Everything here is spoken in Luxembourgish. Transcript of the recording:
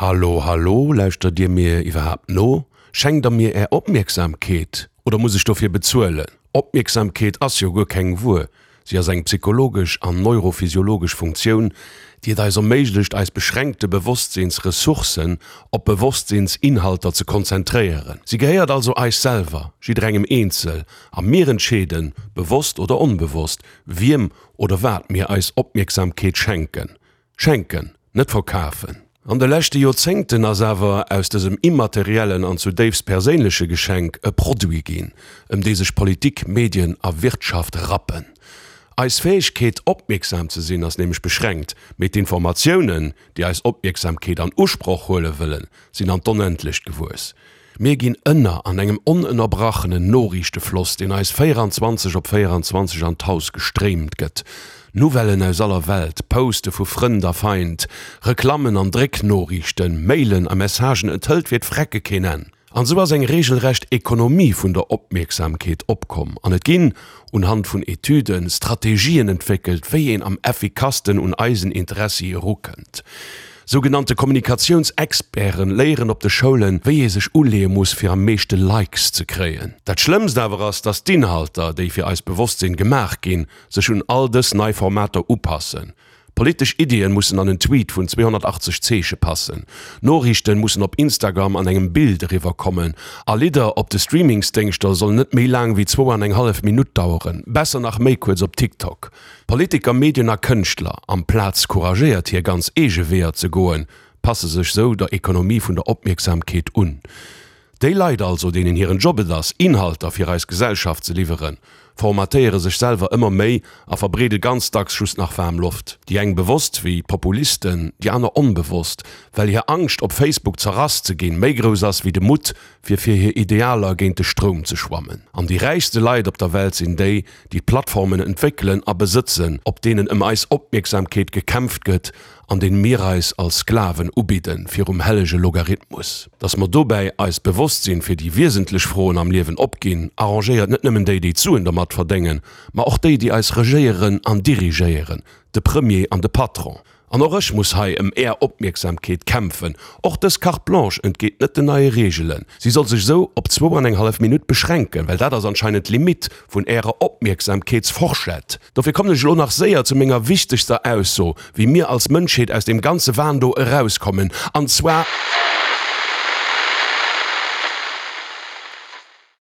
Hallo, hallo, lauschtert Dir mir iwwerhaapt no? Schenkt Der mir Är Opmierksamkeet oder muss ech dofir bezuelen? Opmierksamkeet ass jo guer keng Wuer, si ass eng psychologesch an neurophysiologesch Funktioun, déi et eis erméiglecht, eis beschränkte Bewosstsinnsressourcen op Bewosstsinns-Inhalter ze konzentréieren. Si gehéiert also eis selwer, jidderengem eenzel, a mir entscheeden, bewosst oder onbewosst, wiem oder wat mir eis Opmierksamkeet schenken. Schenken, net verkafen. An de leschte Joerzéngten ass awer aus dësem immateriellen an zudéifst perséinleche Geschenk e Produit ginn, ëm dee sech Politik, Medien a Wirtschaft rappen. Eis Fäegkeet, opmierksam ze sinn, ass nämlech beschränkt, mee d'Informatiounen, déi eis Opmierksamkeet an Usproch huele wëllen, sinn an d'Onendlecht gewuess. Mir ginn ënner an engem onënnerbrachenen Noriichtefloss, deen eis 24 op 24 an d'Haus gestréimt gëtt. Nouvellen aus aller Welt, Poste vu Frënd a Feind, Reklammen an Drécknoriichten, Mailen a Messagen, et hëlt fir d'Frecke keen Enn. An esou ass eng regelrecht Ekonomie vun der Opmierksamkeet opkomm an et ginn, unhand vun Etüden, Strategien entwéckelt, wéi een am effikassten un eisen Interessi erukënnt. Sougenannte Kommunikatiounsexperten léieren op de Schoulen, wéi ee sech uleeë muss, fir am meeschte Likes ze kréien. Dat Schlëmmst awer ass, dass d'Inhalter, déi fir eist Bewosstsinn gemaach ginn, sech un all dës nei Formater upassen. Politesch Iddien mussen an en Tweet vun 280 Zeeche passen, Noriichten mussen op Instagram an engem Bild eriwwer kommen a Lidder op de Streamingsdéngschter sollen net méi laang wéi zwou an eng hallef Minutt daueren, besser nach méi kuerz op TikTok. Politiker, Medien a Kënschtler, amplaz couragéiert hir ganz eege Weeër ze goen, passe sech sou der Ekonomie vun der Opmierksamkeet un. Déi Leit also, deenen hiren Job et ass, Inhalter fir eis Gesellschaft ze liwweren, formatéiere sech selwer ëmmer méi a verbreede ganz dacks just nach waarm Loft. Déi eng bewosst, wéi d'Populisten, déi aner onbewosst, well hir Angscht, op Facebook zerrass ze ginn, méi grouss ass wéi de Mutt, fir fir hir Idealer géint de Stroum ze schwammen. An déi räichste Leit op der Welt sinn déi, déi d'Plattformen entwéckelen a besëtzen, op deenen ëm eis Opmierksamkeet gekämpft gëtt an deene mir eis als Sklaven ubidden virum hellege Logarithmus. Dass mer dobäi eist Bewosstsinn fir déi wiesentlech Froen am Liewen opginn, arrangéiert net nëmmen déi, déi d'Suen dermat verdéngen, ma och déi, déi eis regéieren an dirigéieren, de Premier an de Patron. An och ech muss hei ëm Är Opmierksamkeet kämpfen. Och dës Carte blanche entgeet net den neie Reegelen. Si soll sech esou op zwou an eng hallef Minutt beschränken, well dat ass anscheinend d'Limitt vun Ärer Opmierksamkeetsforschett. Dofir kommen ech elo nach séier zu menger wichtegster Ausso, wéi mir als Mënschheet aus deem ganze Wahn do erauskommen, an zwar.